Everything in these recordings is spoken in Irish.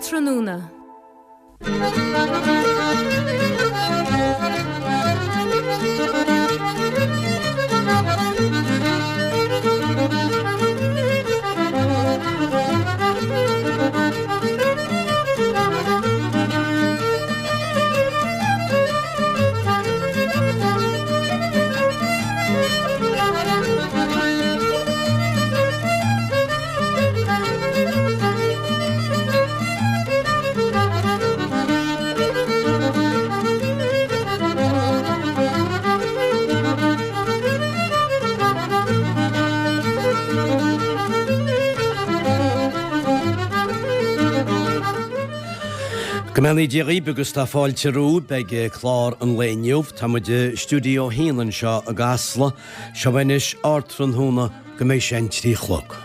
Ardtráthnóna. Go mbeannaí Dia dhaoib agus tá fáilte romhaibh. Beidh clár an lae inniu. Tá muid i stiúideo a haon anseo i gCasla. Seo anois Ardtráthnóna go mbeidh sé an 3 a chlog.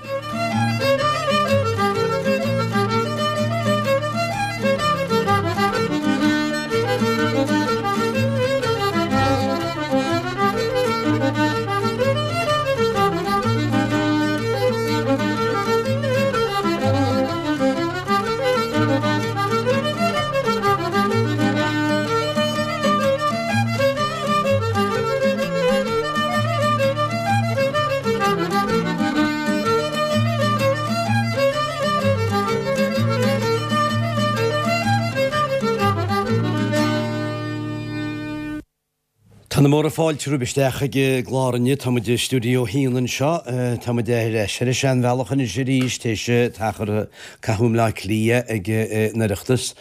Tá na móra fáilte romhaibh isteach ag an gclár inniu. Tá muid i stiúideo a haon anseo. Tá muid ar ais ar an seanbhealach anois arís, théis t-achar a caitheadh i mBleá Cliath ag an Oireachtas.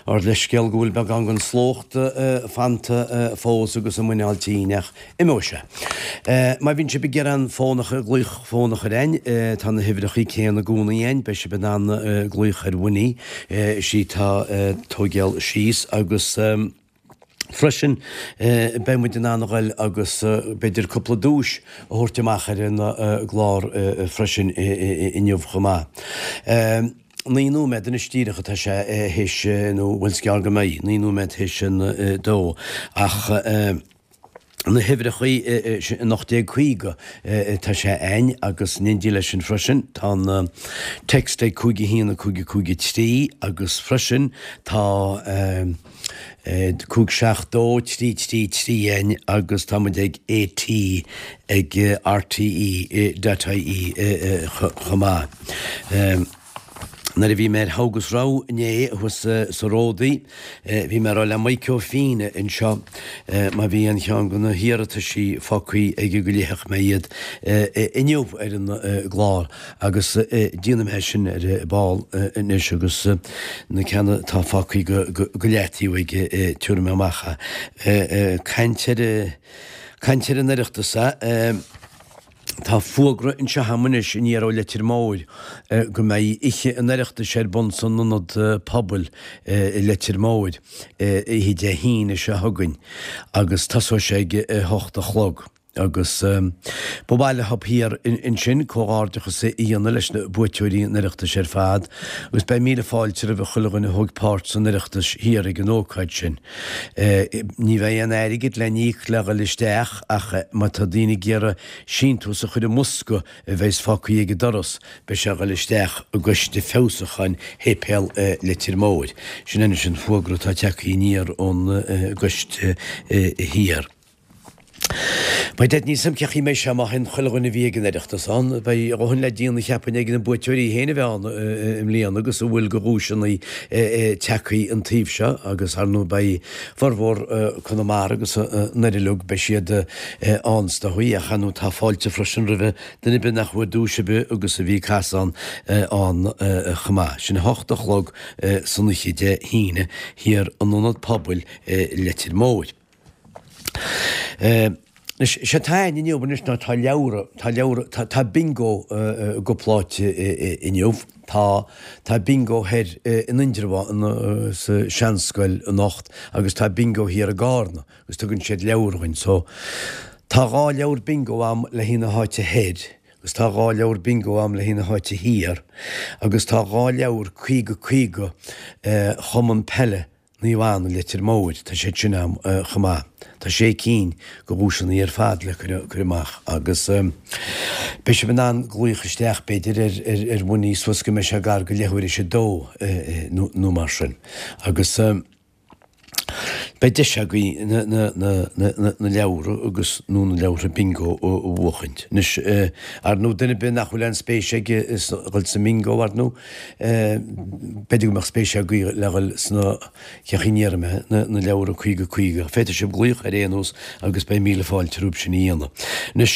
Ár leithscéal go bhfuil beagán den slócht fanta fós agus a muineál tinn ach imeoidh sé. Má bhíonn sibh ag iarraidh an fón a glaoch fón a chur a'inn, tá na huimhreachaí céanna i gcónaí a'inn, beidh sibh in ann glaoch ar Winnie, is í tá ag tóigeáil síos agus. Freisin, beidh muid in ann a ghoil agus b'fhéidir cúpla duais a thabhairt amach ar an gclár freisin inniu chomh maith. 9 nóiméad anois díreach atá sé théis, nó bhuel is gearr go mbeidh, 9 nóiméad théis an dó, ach na huimhreachaí, 1850 atá sé a'inn agus in éindí leis sin freisin tá an text ag 5 1 5 5 3 agus freisin tá 5 7 2 3 3 3 a'inn agus tá muid ag AT ag RTE dot IE chomh maith. Nuair a bhí mé ar Thogh agus Rogha inné thuas sa Ródaí, bhí mé ag rá le Mike Ó Fiaich anseo má bhí aon cheann de na hiarrataisí fágthaí aige go léifeadh mé iad inniu ar an gclár agus déanfaidh mé sin ar ball anois agus na ceanna atá fágthaí go leataobh aige tabharfaidh mé amach é. Caint ar caint ar an Oireachtas a. Tá fógra anseo agam anois aniar ó Leitir Móir go mbeidh oíche an Oireachtais ar bun san Ionad Pobail i Leitir Móir oíche Dé hAoine seo chugainn agus tosóidh sé ag a hocht a chlog agus ba mhaith leo thiar ansin comhghairdeachas a dhéanamh leis na buaiteoirí an Oireachtais ar fad agus beidh míle fáilte roimh chuile dhuine a thóg páirt san Oireachtas thiar ag an ócáid sin. Ní bheidh aon airgead le n-íoc le dhul isteach ach má tá daoine ag iarraidh síntiús a chur i mbosca a bheas fágtha ag an doras, beidh sé ag dhul isteach i gCoiste Feabhsúcháin Shéipéal Leitir Móir. Sin anois an fógra atá tagtha aniar ón gcoiste thiar. Beidh Dead Níl 's a'm cén chaoi a mbeidh sé má théann chuile dhuine a bhí ag an Oireachtas ann. Beidh a dhóthain le déanamh cheapfainn ag na buaiteoirí féin a bheith ann i mbliana agus a bhfuil de dhuaiseanna tagtha an taobh seo agus ar ndóigh beidh formhór Conamara agus an Doire uilig beidh siad ann is dóigh ach ar ndóigh tá fáilte freisin roimhe duine ar bith nach bhfuair duais ar bith agus a bhí ag casadh ann ann chomh maith. Sin 8 a chlog san oíche Dé hAoine thiar in Ionad Pobail Leitir Móir. Anois, sé atá a'inn inniu anois ná tá leabhra, tá leabhra, tá, tá bingo i gcúpla áit inniu. Tá, tá bingo thoir in Indreabhán sa seanscoil anocht agus tá bingo thiar i gCarna agus tugann siad leabhar dhuinn. So, tá 2 leabhar bingo a'm le haghaidh na háite thoir agus tá 2 leabhar bingo a'm le haghaidh na háite thiar agus tá 2 leabhar 50 50 Chumann Peile. Naomh Anna Leitir Móir, tá siad sin ann chomh maith. Tá sé cinn de dhuaiseanna ar fad le cur amach agus beidh sibh in ann glaoch isteach b'fhéidir ar bhuinní suas go mbeidh sé gar go leathuair théis a dó nó mar sin agus beidh deis agaibh na leabhra agus nó na leabhartha bingo a bhuachaint. Anois, ar ndóigh duine ar bith nach bhfuil aon spéis aige dhul sa mbingo ar ndóigh, b'fhéidir go mbeadh spéis agaibh le dhul sna Cén chaoi a ndéarfaidh mé, na leabhra 50 50. Féadfaidh sibh glaoch ar aon nós agus beidh míle fáilte romhaibh sin a dhéanamh. Anois,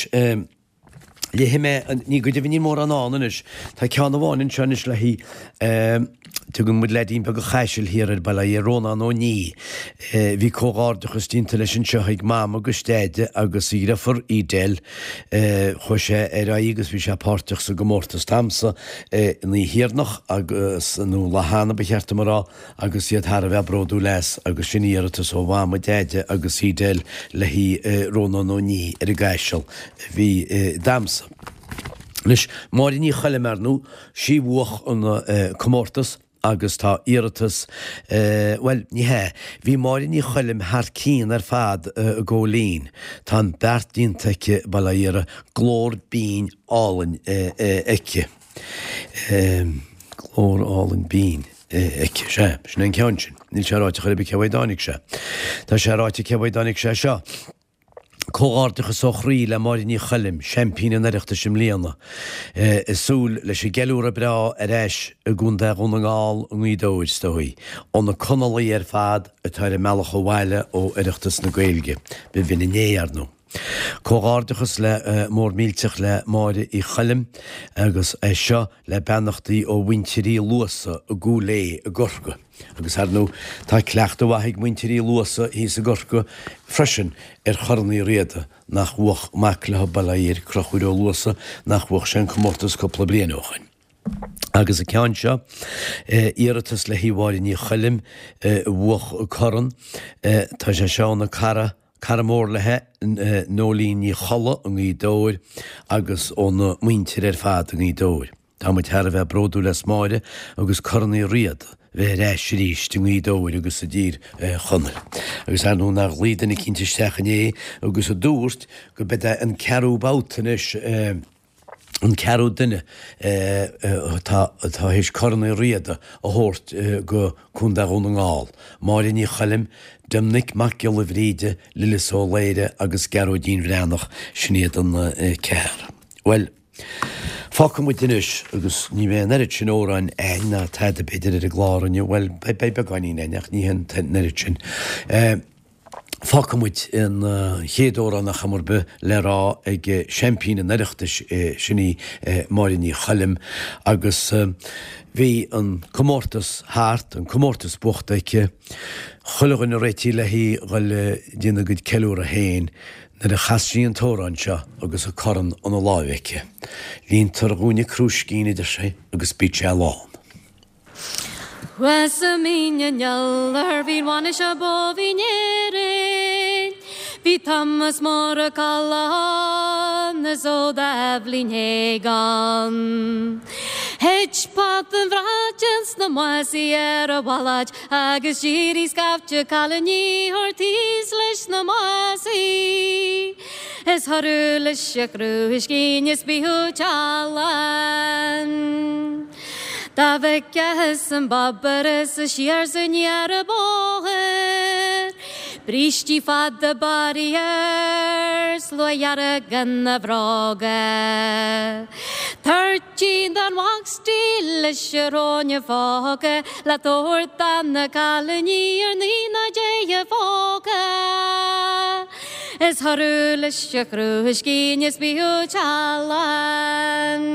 léifidh mé, ní go deimhin níl mórán ann anois, tá ceann amháin anseo anois le haghaidh, tugann muid leaidín beag an Chaisil thiar air, bail ó Dhia air, Rónán Ó Nia. Bhí comhghairdeachas déanta leis anseo ag Mam agus Deaide agus a dhriofar Edel. Chuaigh sé ar aghaidh agus bhí sé páirteach sa gcomórtas damhsa an oíche dheireanach agus, nó lá cheana ba cheart dom a rá, agus iad thar a bheith bródúil as, agus sin iarratas ó Mham, Deaide agus Edel le haghaidh Rónán Ó Nia ar an gCaiseal a bhí damhsa. Anois, Máire Ní Choilm, ar ndóigh, sí bhuach an comórtas agus tá iarratas, bhuel, ní hea, bhí Máire Ní Choilm thar cionn ar fad i gCóilín. Tá an beart déanta aici, bail ó Dhia uirthi, glór binn álainn aici. Glór álainn binn aici. Sea, sin é an ceann sin. Níl sé ráite chor ar bith cé uaidh a dtáinig sé. Tá sé ráite cé uaidh a dtáinig sé seo. Comhghairdeachas ó chroí le Máire Ní Choilm, seaimpín an Oireachtais i mbliana. Ag súil leis an gceiliúradh breá ar ais i gContae Dhún na nGall i nGaoth Dobhair, is dóigh, ó na Conallaigh ar fad atá ar a mbealach abhaile ó Oireachtas na Gaeilge. B'in inné, ar ndóigh. Comhghairdeachas le mór millteach le Máire Uí Choilm agus é seo le beannachtaí ó mhuintir Uí Luasa i gCúil Aodha i gCorcaigh. Agus ar ndóigh tá cleachtadh mhaith ag muintir Uí Luasa thíos i gCorcaigh freisin ar Chorn Uí Riada nach bhuach mac leo bail ó Dhia air, Conchúr Ó Luasa, nach bhuach sé an comórtas cúpla bliain ó shoin. Agus an ceann seo, iarratas le haghaidh Mháire Ní Choilm a bhuach corn, tá sé seo óna cara, cara mór léi, Nóilín Ní Cholla i nGaoth Dobhair agus óna muintir ar fad i nGaoth Dobhair. Tá muid thar a bheith bródúil as Máire agus Corn Uí Riada bheith ar ais arís i nGaoth Dobhair agus i dTír Chonaill. Agus ar ndóigh nár ghlaoigh duine eicínt isteach inné agus a dúirt go b'é an ceathrú babhta anois, an ceathrú duine atá théis Corn Uí Riada a thabhairt go Contae Dhún na nGall, Máire Ní Choilm, Doimnic Mac Giolla Bhríde, Lillis Ó Laoire agus Gearóidín Bhreathnach, sin iad an ceathrar. Bhuel, fágfaidh muid anois agus ní bheidh an oiread sin amhráin a'inn ná tada b'fhéidir ar an gclár inniu, bhuel, beidh beagáinín a'inn ach ní an oiread sin. Fágfaidh muid an chéad amhrán ar chuma ar bith le rá ag seaimpín an Oireachtais, sin í Máire Ní Choilm, agus bhí an comórtas thart, an comórtas buachta aici, chuile dhuine réitithe léi dhul ag déanamh a gcuid ceiliúradh féin nuair a chas sí an t-amhrán seo agus an corn ina láimh aici. Líontar dhúinne crúiscín, a deir sí, agus bíonn sé lán. Thuas i Mín an Iolair bhí an bhainis ab mhó in Éirinn. Bhí Thomas Mór Ó Ceallacháin is ó Doibhlin Hagan. Thit pota an bhrait ins na másaí ar a mhalait agus d'éirigh scaifte cailíní thar thíos leis na másaí. Is thoradh leis a chrúiscín is bíodh teallán. Dá bhfeictheas an bábur is a siar 's aniar an bóthar, Brístí fada barraí air, sluaigh dhearg ina bhróga. Toirtín don mhac dílis a raibh ina phóca Le tabhairt do na cailíní ar naoi ná deich a phóca. Is thoradh leis a chrúiscín is bíodh teallán.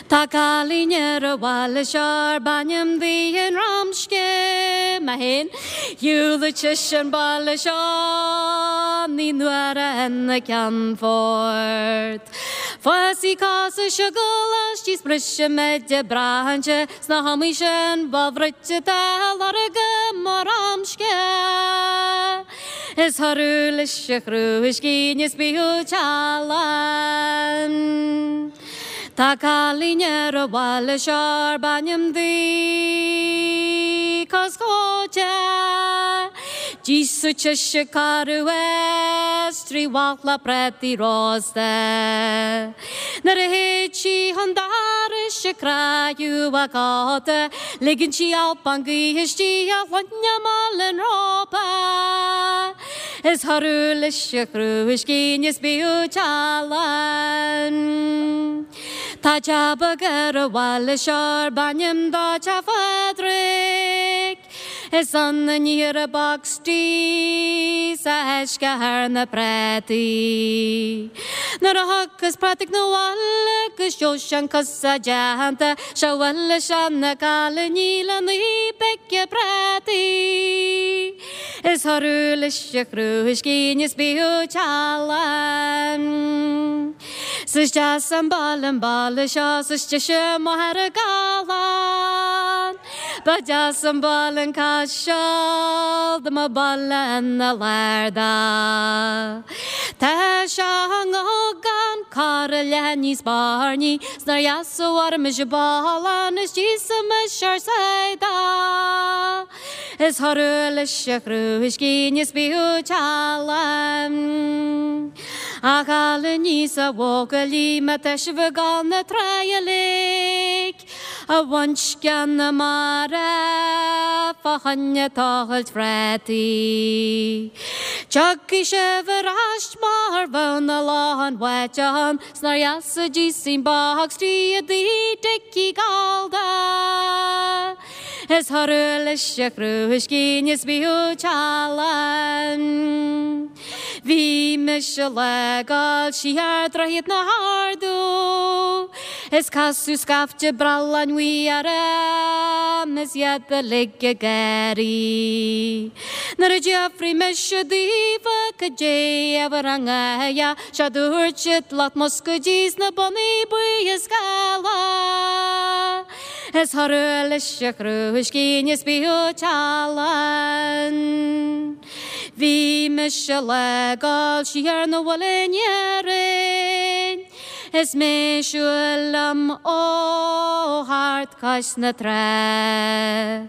Tá cailín ar an bhaile seo arb ainm di an Ramsce mé féin. Shiúladh sise an baile seo naoi n-uaire ina ceannfort. Fuasaí cosa seo go laistíos briseadh maide brainse sna hamaí sin ba bhruite tá lorg mo Ramsce. Is thoradh leis a chrúiscín is bíodh teallán. Tá cailín ar an bhaile seo arb ainm di. iascóite. D'íosfadh sise carú is 3 mhála prátaí rósta. Nuair a théid sí chun dorais ag croitheadh a cóta, ligeann sí alpán gaoithe istigh a shloinne malainn rópa. Is thoradh leis a chrúiscín is bíodh tealann. Tá teach beag ar an bhaile seo arb ainm dó Teach Phádraig. Is ann a níthear an boxty 's a fheiscear na prátaí. Nuair a thiocfas Pádraig 'na bhaile agus seanchas a dteannta, 'sé a bhuaile seana cailíní le naoi bpéice prátaí. Is thoradh leis a chrúiscín is bíodh tealann. 'S is deas an baile an baile seo 's is deise Machaire Gathlán. Ba deas an baile an Caiseal dá mba baile ina lár dó. Tá sé gan corr leath níos bairní 's nár dheas a mhairimis i bPollann is d'íosfaimis ár sáith dó. Is thoradh leis a chrúiscín is bíodh tealann. A chailíní 's a bhuachaillí má tá sibh ag gabháil 'na trá uilig a bhaint de na mara fá choinne tochailt phrátaí. Tiocfaidh sibh ar ais mar bheadh na locháin bháite ann 's nár dheas a d'íosfainn boxty i dtigh Dickie Gallda. Is thoradh leis a chrúiscín is bíodh tealann. Bhí mise le gabháil siar Droichead na hArdú is casadh scaifte brealláin bhuí orm is iad uilig ag gáirí. Nuair a d'fhiafraigh mise daofa cad é a bhur ngáire, 'sea dúirt siad lucht muscaeidí 's na bonnaí buí is geala. Is thoradh leis a chrúiscín is bíodh tealann. Bhí mise le gabháil siar 'na bhaile in Éirinn is mé ag siúl liom ó thart cois na trá.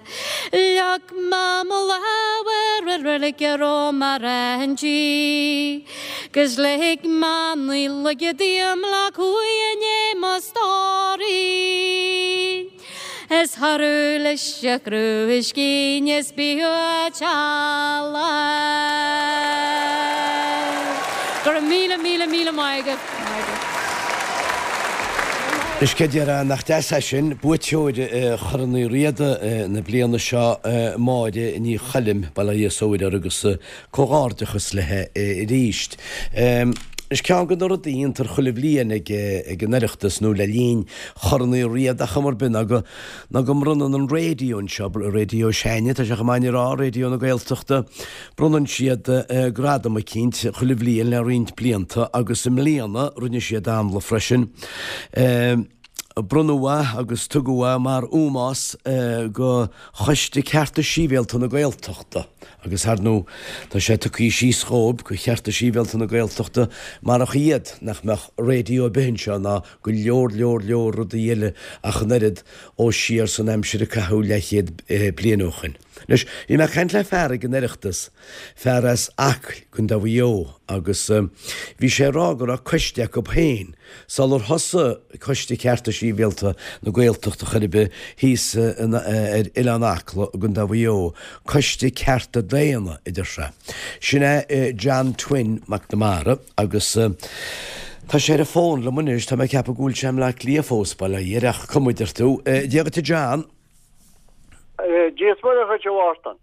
Leag mé mo lámh ar an reilig a raibh mé inti 'gus lig mé naoi laige díom le cumhaidh i ndiaidh mo stóirín. Is thoradh leis a chrúiscín is bíodh tealann. Go raibh míle, míle, míle maith agat. Anois cé déarfá nach deas é sin, buaiteoir Chorn Uí Riada na bliana seo, Máire Ní Choilm, bail ó Dhia is uirthi agus comhghairdeachas léi arís. Is ceann de na rudaí a dhéantar chuile bhliain ag an Oireachtas nó le linn Chorn Uí Riada ar chuma ar bith ná go ná go mbronnann an raidió anseo, raidió s'againne, tá sé chomh maith a rá, Raidió na Gaeltachta, bronnann siad gradam eicínt chuile bhliain le roinnt blianta agus i mbliana rinne siad amhlaidh freisin. Bronnadh é agus tugadh é mar ómós go Choiste Cearta Sibhialta na Gaeltachta agus ar ndóigh tá sé tugtha síos dhóibh, go Chearta Sibhialta na Gaeltachta, marach iad nach mbeadh raidió ar bith anseo ná go leor leor leor rudaí eile ach an oiread ó siar san aimsir a caitheadh leathchéad bliain ó shoin. Anois, bhí mé ag caint le fear ag an Oireachtas, fear as Acaill, Contae Mhaigh Eo, agus bhí sé ag rá go raibh coiste acu féin, sular thosaigh Coiste Cearta Sibhialta na Gaeltachta chor ar bith thíos ar Oileán Acla i gContae Mhaigh Eo, Coiste Cearta Daonna, a deir sé. Sin é John Twin McNamara agus tá sé ar an bhfón liom anois, tá mé ag ceapadh go bhfuil sé i mBleá Cliath fós, bail ó Dhia air, ach cuma a deir tú. Dia dhuit a John. Dia is Muire dhuit a Mhártain.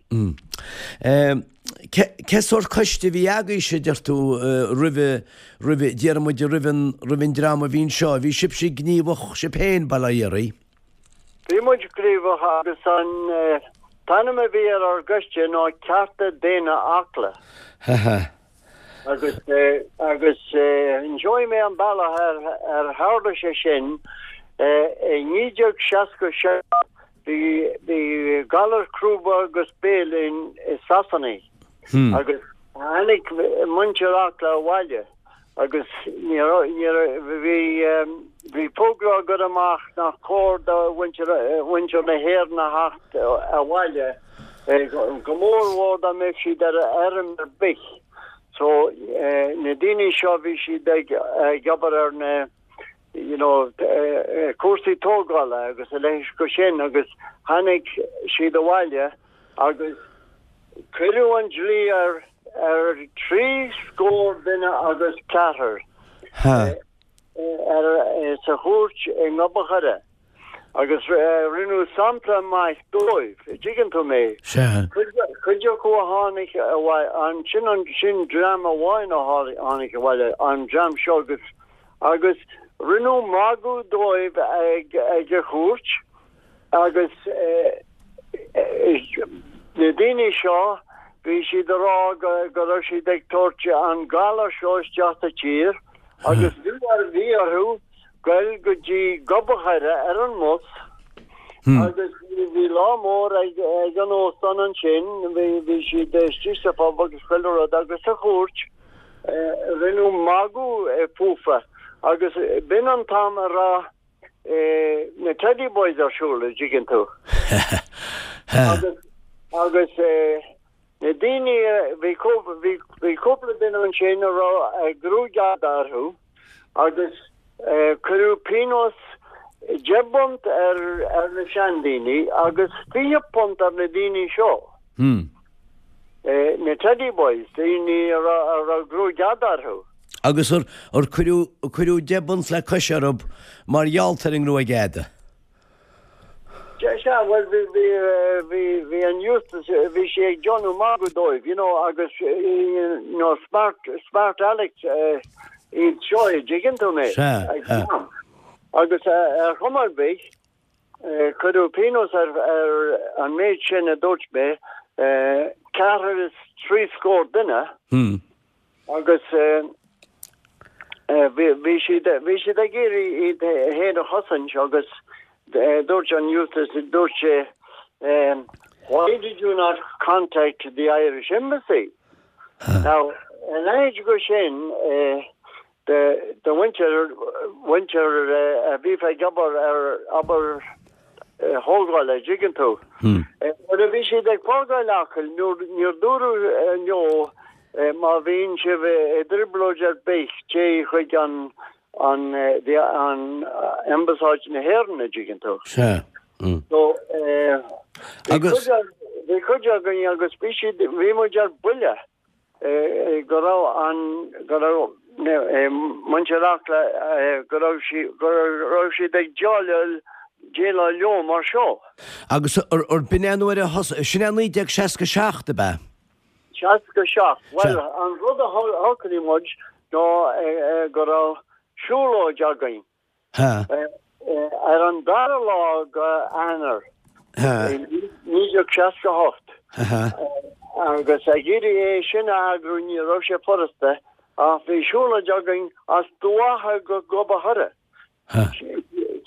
Cé sórt coiste a bhí agaibhse, a deir tú, roimhe, roimhe, déarfaidh muid roimh an, roimh an dream a bhí anseo? Bhí sibhse gníomhach sibh féin, bail ó Dhia oraibh? Bhí muid gníomhach agus an t-ainm a bhí ar ár gcoiste ná Cearta Daonna Acla. Ha ha. Agus, agus inseoidh mé an bealach ar, ar tharla sé sin. I 1967 bhí, bhí galar crúba agus béil in, i Sasana agus tháinig muintir Acla abhaile agus ní raibh, ní raibh, bhí, bhí fógra á gcur amach nach cóir do mhuintir, mhuintir na hÉireann a theacht abhaile. Go mór mhór dá mbeadh siad ar fheirm ar bith. So na daoine seo bhí siad ag ag obair ar na you know cúrsaí tógála agus a leithéid go sin agus tháinig siad abhaile agus cuireadh an dlí ar ar thrí scór duine agus ceathrar ar sa chúirt i nGob a' Choire. Agus rinneadh sampla maith dóibh, a dtuigeann tú mé. Sea. Cuid acu a tháinig abhaile, ansin an, sin dream amháin a tháinig abhaile, an dream seo agus, agus rinneadh magadh dóibh ag, ag an chúirt agus na daoine seo, bhí siad a rá go, go raibh siad ag tabhairt an galar seo isteach sa tír agus bhí, bhí orthu goil go dtí Gob a' Choire ar an mbus agus bhí lá mór ag an óstán ansin, bhí siad istigh sa phub agus chuile rud agus sa chúirt rinneadh magadh fúfa agus b'in an t-am a raibh na Teddy Boys ar siúl, a dtuigeann tú. Agus agus na daoine, bhí bhí cúpla duine ansin a raibh gruaig fhada orthu agus cuireadh pionós 10 bpunt ar ar na seandaoine agus 20 punt ar na daoine seo. Na Teddy Boys, daoine a raibh gruaig fhada orthu. Agus ar ar cuireadh cuireadh 10 bpunt le cois orthu mar gheall ar an ngruaig fhada? Sea, bhuel, bhí, bhí, bhí, bhí an Eustace, bhí sé ag déanamh magadh dóibh, you know, agus, you know, smart, smart Alex iad seo, a dtuigeann tú mé? Sea, sea. Agus ar chuma ar bith, cuireadh pionós ar, ar an méid sin a dúirt mé, ceathrar is thrí scór duine. Hmm. Agus bhí siad, bhí siad ag iarraidh iad féin a chosaint agus dúirt an Eustace, dúirt sé, Why did you not contact the Irish Embassy? Now, a leithéid go sin, de mhuintir, mhuintir a bhí ag obair ar obair thógála, a dtuigeann tú. Nuair a bhí siad ag fágáil Acaill, níor dúradh leo má bhíonn sibh i dtrioblóid ar bith, téigh chuig an an an Ambasáid na hÉireann, a dtuigeann tú. Sea. So, bhí cuid againn agus bhí siad, bhí muid ar buile. go raibh an, go raibh muintir Acla, go raibh sí, go raibh siad ag déileáil, déileáil leo mar seo. Agus ar b'in é nuair a thosaigh, sin é 1967 ab ea? 67, bhuel an rud a shocraigh muid ná go raibh siúlóid againn. Ar an dara lá go Eanáir 1968, agus ag iarraidh é sin a eagrú ní raibh sé furasta, ach bhí siúlóid againn as Dumha Acha go Gob a' Choire.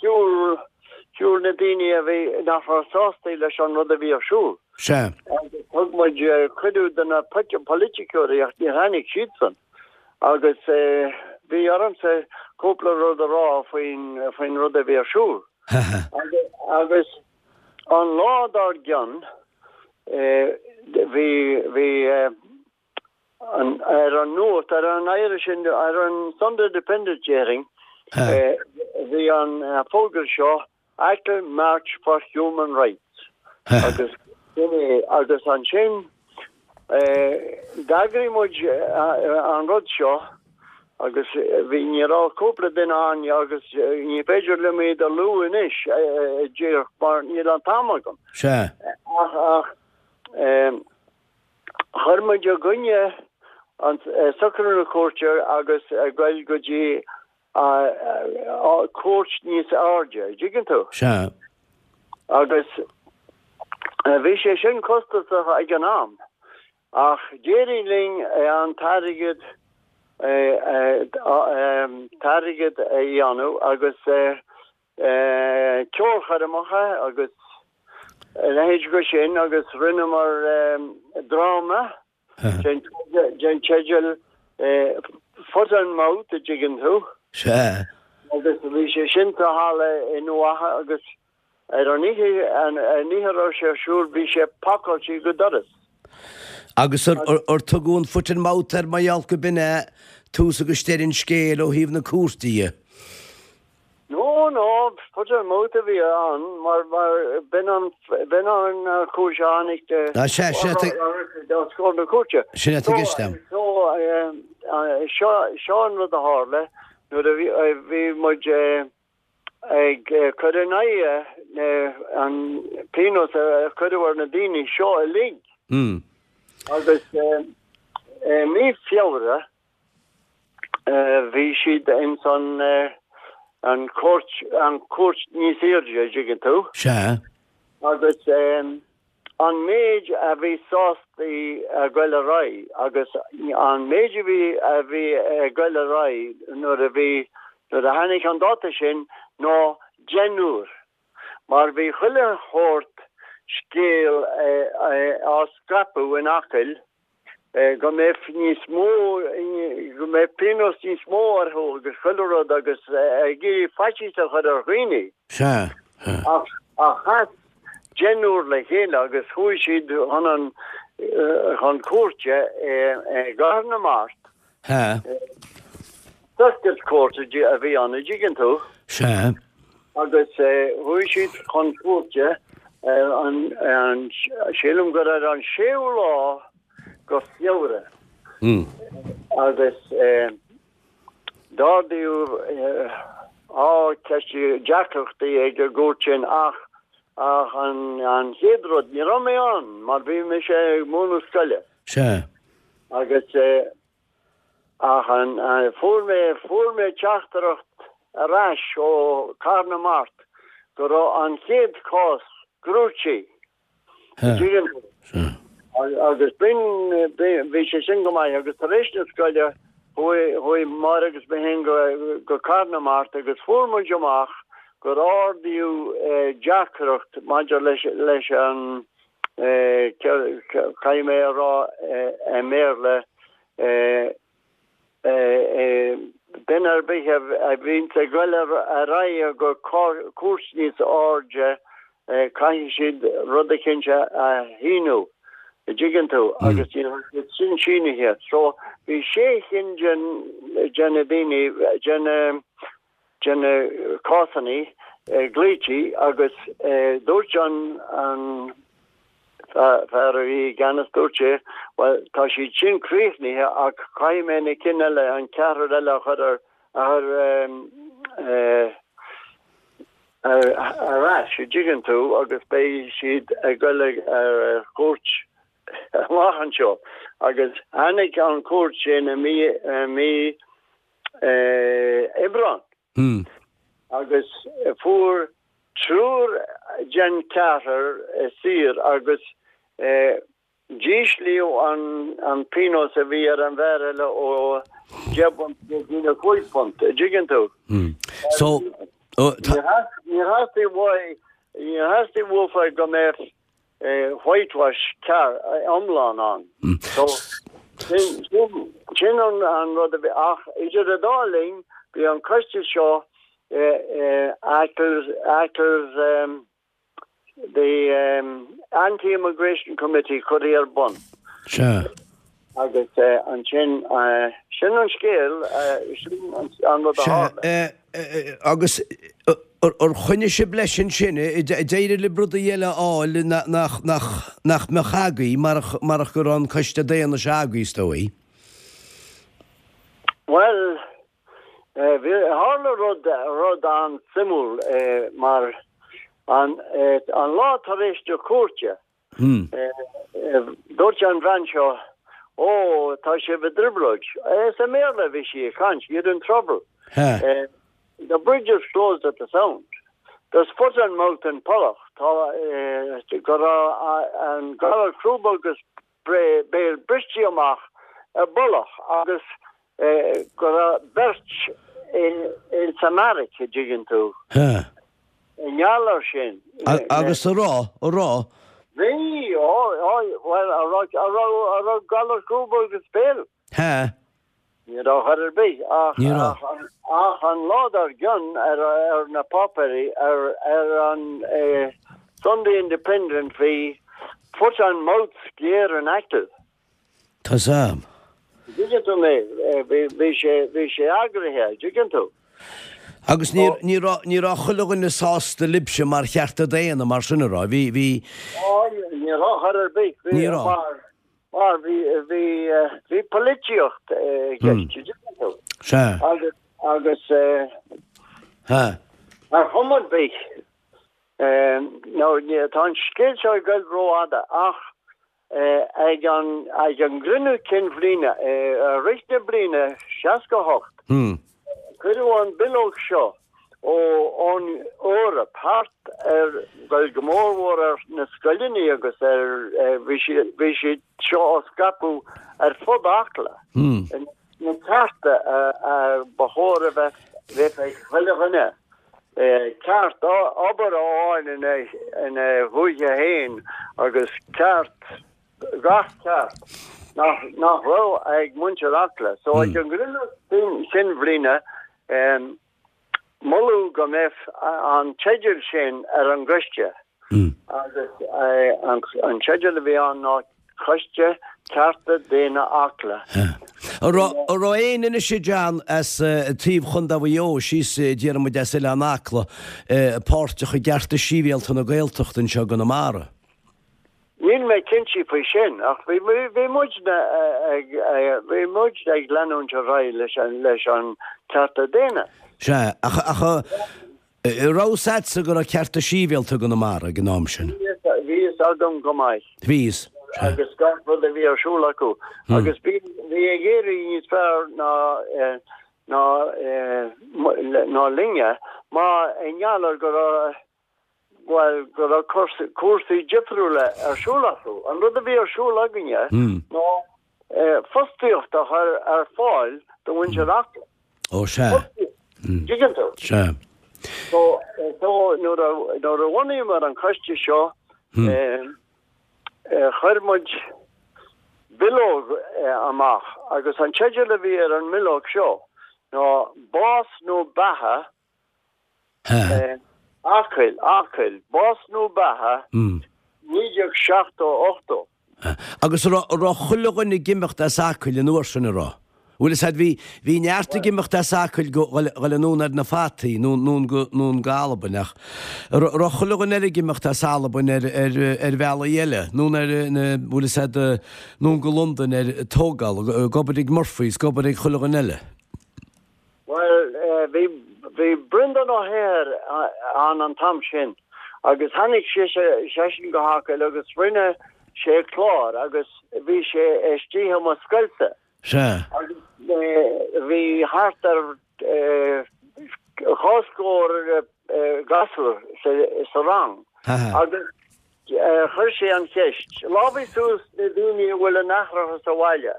Shiúil, shiúil na daoine a bhí, nach raibh sásta leis an rud a bhí ar siúl. Sea. Agus thug muid cuireadh do na polaiticeoirí ach níor tháinig siadsan. Agus bhí ormsa cúpla rud a rá faoin, faoin rud a bhí ar siúl. Agus an lá dár gcionn, bhí, bhí an, ar an nuacht, ar an Irish, ar an Sunday Independent déarfainn, bhí an fógra seo, Achill March for Human Rights agus sin é agus ansin d'eagraigh muid an rud seo agus bhí, ní raibh cúpla duine ann agus ní féidir liom iad a lua anois díreach mar níl an t-am agam. Sea. Ach, ach chuir muid i gcoinne an socrú na cúirte agus ag goil go dtí cúirt níos airde, a dtuigeann tú? Sea. Agus bhí sé sin costasach ag an am, ach d'éirigh linn an t-airgead, t-airgead a dhéanamh agus ceolchoirmeacha agus a leithéid go sin agus rinneamar dráma. Den teideal Foot and Mouth, a dtuigeann tú. Sea. Agus bhí sé sin sa halla i nDumha Acha agus. Ar an oíche, an oíche a raibh sé ar siúl, bhí sé pacáilte go doras. Agus ar tugadh an foot and mouth air mar gheall go b'in é tús agus deireadh an scéil ó thaobh na cúirte dhe? No, no, foot and mouth a bhí ann mar, mar b'in an, b'in an chúis a tháinig de, Ah, sea, sin é, os comhair na cúirte. Sin é atá i gceist agam. So, seo, seo an rud a tharla nuair a bhí, bhí muid, ag cur in aghaidh an pionós a cuireadh ar na daoine seo uilig. Agus i mí Feabhra bhí siad ins an an chúirt an chúirt níos airde, an dtuigeann tú. Sea. Agus an méid a bhí sásta a ghoil ar aghaidh agus an méid a bhí a bhí ag goil ar aghaidh nuair a bhí nuair a tháinig an dáta sin ná deichniúr mar bhí chuile shórt scéal á scaipeadh in Acaill go mbeadh níos mó, go mbeadh pionós níos mó orthu agus chuile rud agus ag iarraidh faitíos a chur ar dhaoine. Sea. Ach, ach chas deichniúr le chéile agus chuaigh siad chun an, chun cúirte i gCathair na Mart. Sea. Circuit Court a bhí ann, an dtuigeann tú. Sea. Agus chuaigh siad chun cúirte ar an, an, sílim gur ar an séú lá go Feabhra. Agus d'ardaíodh á ceist deacrachtaí ag an gcúirt sin ach, ach an, an chéad rud, ní raibh mé ann mar bhí mise ag múineadh scoile. Sea. Agus Ach an, fuair mé, fuair mé teachtaireacht ar ais ó Cathair na Mart go raibh an chéad chás gnóthaithe. Tuigeann tú? Agus b'in, bhí sé sin go maith agus tar éis na scoile chuaigh, chuaigh Máire agus mé féin go, go Cathair na Mart agus fuair muid amach gur ardaíodh deacracht maidir leis, leis an, caithfidh mé a rá i mBéarla, duine ar bith a bhíonns ag goil ar aghaidh go cúirt níos airde, caithfidh siad rud eicínt a shíniú, an dtuigeann tú, agus ní raibh siad sin sínithe. So, bhí sé chinn de na daoine, de na, de na cásanna glaoití agus dúirt an fear a bhí i gceannas, dúirt sé, bhuel, tá siad sin críochnaithe ach caithfidh mé na cinn eile, an ceathrar eile a chur ar, a chur ar ais, an dtuigeann tú, agus beidh siad ag goil ar chúirt amach anseo. Agus tháinig an chúirt sin i mí, i mí Aibreán agus fuair triúr den cheathrar saor agus d'íslíodh an pionós a bhí ar an bhfear eile ó 10 bpunt go dtí na 5 phunt, an dtuigeann tú? So, Níor theastaigh uaidh, níor theastaigh uafa go mbeadh whitewash ceart iomlán ann. So, sin, sin, sin an, an rud a bhí, ach idir an dá linn, bhí an coiste seo, Achill, Achill's, the Anti-Immigration Committee curtha ar bun. Sea. Agus ansin, sin an scéal, sin an rud a tharla. Sea, agus ar choinnigh sibh leis ansin, d'éirigh libh rudaí eile a fháil nach mbeadh agaibh marach go raibh an coiste daonna seo agaibh, is dóigh? Bhuel, tharla rud, rud an-suimiúil mar an lá tar éis na cúirte, Dúirt an bhean seo, Ó, tá sibh i dtrioblóid. Is i mBéarla a bhí sí ag caint, you're in trouble. The bridge is closed at the sound. There's foot and mouth in Pollach. Tá, go raibh an galar crúb agus béil briste amach i bPollach agus go raibh beirt ins an mbeairic, an dtuigeann tú. I ngeall air sin. Agus a raibh, a raibh. Bhí, ó, ó, bhuel, a raibh, a raibh, a raibh galar crúb agus béil. Ha. Ní raibh chor ar bith ach Ní raibh. ach an lá dár gcionn ar ar na páipéirí ar ar an Sunday Independent bhí Foot and Mouth Scare in Achill. Tá's a'm. Dtuigeann tú mé, bhí sé bhí sé eagraithe, dtuigeann tú. Agus ní ní raibh ní raibh chuile dhuine sásta libhse mar chearta daonna mar sin a raibh, bhí bhí. Ó ní raibh chor ar bith, bhí Ní raibh. mar Mar bhí, bhí, bhí polaitíocht i gceist, dtuigeann tú. Sea. Agus, agus Ha. ar chuma ar bith, nó tá an scéal seo ag goil rófhada, ach ag an, ag an gcruinniú cinn bhliana, i rith na bliana 68, Cuireadh an bileog seo ó ón Eoraip thart ar, bhuel go mór mhór ar na scoileanna agus ar, bhí siad, bhí siad seo á scaipeadh ar fud Acla. Na cearta a ba chóir a bheith, bheith ag chuile dhuine. Ceart obair a fháil ina, ina dhúiche féin agus ceart gach ceart nach nach raibh ag muintir Acla. So ag an gcruinniú cinn bhliana moladh go mbeadh an teideal sin ar an gcoiste agus an teideal a bhí ann ná Coiste Cearta Daonna Acla. An raibh éinne anois a John as taobh Chontae Mhaigh Eo síos déarfaidh muid as Oileán Acla páirteach i gcearta sibhialta na Gaeltachta anseo i gConamara? Níl mé cinnte faoi sin, ach bhí muidne ag, bhí muid ag leanúint ar aghaidh leis an, leis an cearta daonna. Sea, ach, ach an raibh fhios a'dsa go raibh cearta sibhialta i gConamara ag an am sin? Bhí fhios agam go maith. Bhí fhios, sea. Agus gach rud a bhí ar siúl acu. Agus bhí, bhí ag éirí níos fearr ná, ná, ná linne, mar i ngeall ar go raibh, bhuel, go raibh cúrsaí difriúla ar siúl acu. An rud a bhí ar siúl againne ná fostaíocht a chur ar fáil do mhuintir Acla. Ó, sea. Dtuigeann tú? Sea. So, so nuair a, nuair a bhunaíomar an coiste seo, chuir muid bileog amach agus an teideal a bhí ar an mbileog seo ná Bás nó Beatha Acaill, Acaill, Bás nó Beatha, 1970 80. Agus an raibh chuile dhuine ag imeacht as Acaill an uair sin, an raibh? Bhfuil fhios a'd, bhí, bhí neart ag imeacht as Acaill go, dhul anonn ar na fataí, nó, nó go, nó go Albain ach an raibh chuile dhuine eile ag imeacht as Albain ar, ar, ar bhealaí eile, nó ar na, bhfuil fhios a'd, nó go Londain ar tógáil, ag obair ag Murphy's, ag obair ag chuile dhuine eile. Bhuel, bhí, bhí Breandán Ó hEithir ann an t-am sin agus tháinig seisean go hAcaill agus rinne sé clár agus bhí sé istigh i mo scoilsa. Sea. Agus bhí thart ar dhá scór gasúr sa rang agus Chuir sé an cheist, Lámhaigh suas na daoine a bhfuil a n-aithreacha sa bhaile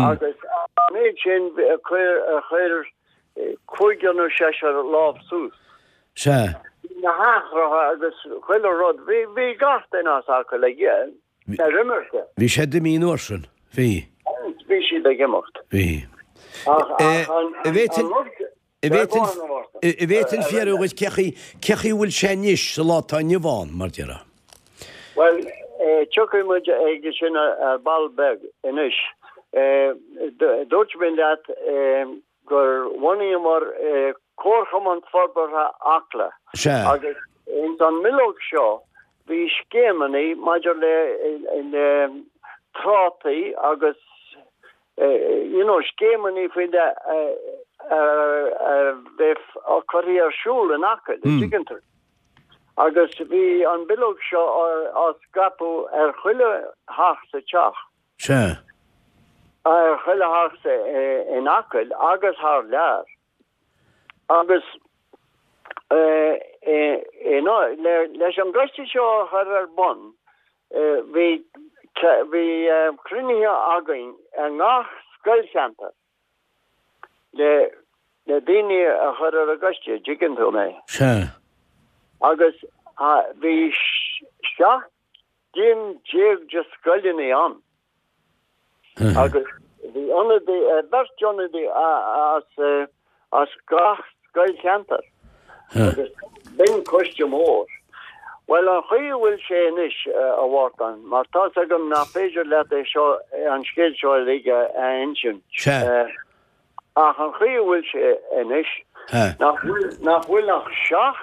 agus an méid sin chuir cúigear nó seisear lámh suas. Sea. Bhí na haithreacha agus chuile rud, bhí bhí gach duine as Acaill ag ar imirce. Bhí siad imithe an uair sin, bhí. Bhí siad ag imeacht. Bhí. Ach an rud An bhféadfainn fiafraí dhuit cé chaoi cé chaoi a bhfuil sé anois sa lá atá inniu ann, mar déarfá? Bhuel, tiocfaidh muid ag sin ar ball beag anois. Dúirt mé leat gur bhunaíomar Comharchumann Forbartha Acla. Sea. Agus ins an mbileog seo bhí scéimeanna maidir le trátaí agus you know, scéimeanna faoi leith a bheith curtha ar siúl in Acaill, an dtuigeann tú. Agus bhí an bileog seo á scaipeadh ar chuile theach sa teach. Sea. Ar chuile theach in Acaill agus thar lear. Agus leis an gcoiste seo a chur ar bun, bhí bhí cruinnithe againn i ngach scoilcheantar le le daoine a chur ar an gcoiste, dtuigeann tú mé. Sea. Agus bhí 17 gcinn de scoileanna ann. Agus. Bhí ionadaí, beirt ionadaí as as gach scoilcheantar agus b'in coiste mór. Bhuel, an chaoi a bhfuil sé anois, a Mhártain, mar tá's agam nach féidir leat é seo, an scéal seo uilig a insint, ach an chaoi a bhfuil sé anois, nach bhfuil, nach bhfuil ach 7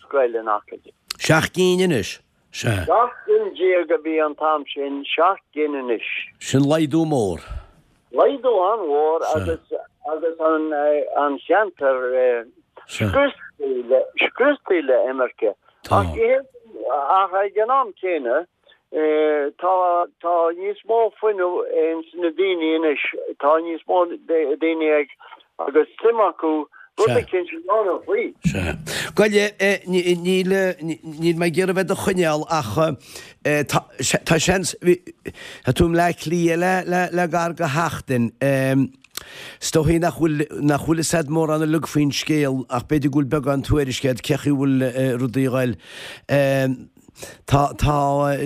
scoil in Acaill. 7 gcinn anois? Sea. 17 gcinn a bhí an t-am sin, 7 gcinn anois. Sin laghdú mór. Laghdú an-mhór agus agus an an cheantar scriosta le imirce. Ach ach ag an am céanna tá tá níos mó fuinneamh ins na daoine anois, tá níos mó daoine ag agus suim acu rud eicínt a dhéanamh faoi. Sea. Gabh i leith, níl, níl mé ag iarraidh bheith do choinneáil ach tá, tá seans, tá tú i mBleá Cliath le, le, le gar go sheachtain. Is dóichí nach bhfuil, nach bhfuil fhios a'd mórán uilig faoin scéal ach b'fhéidir go bhfuil beagán tuairisc a'd cé chaoi bhfuil rudaí a ghoil. Tá tá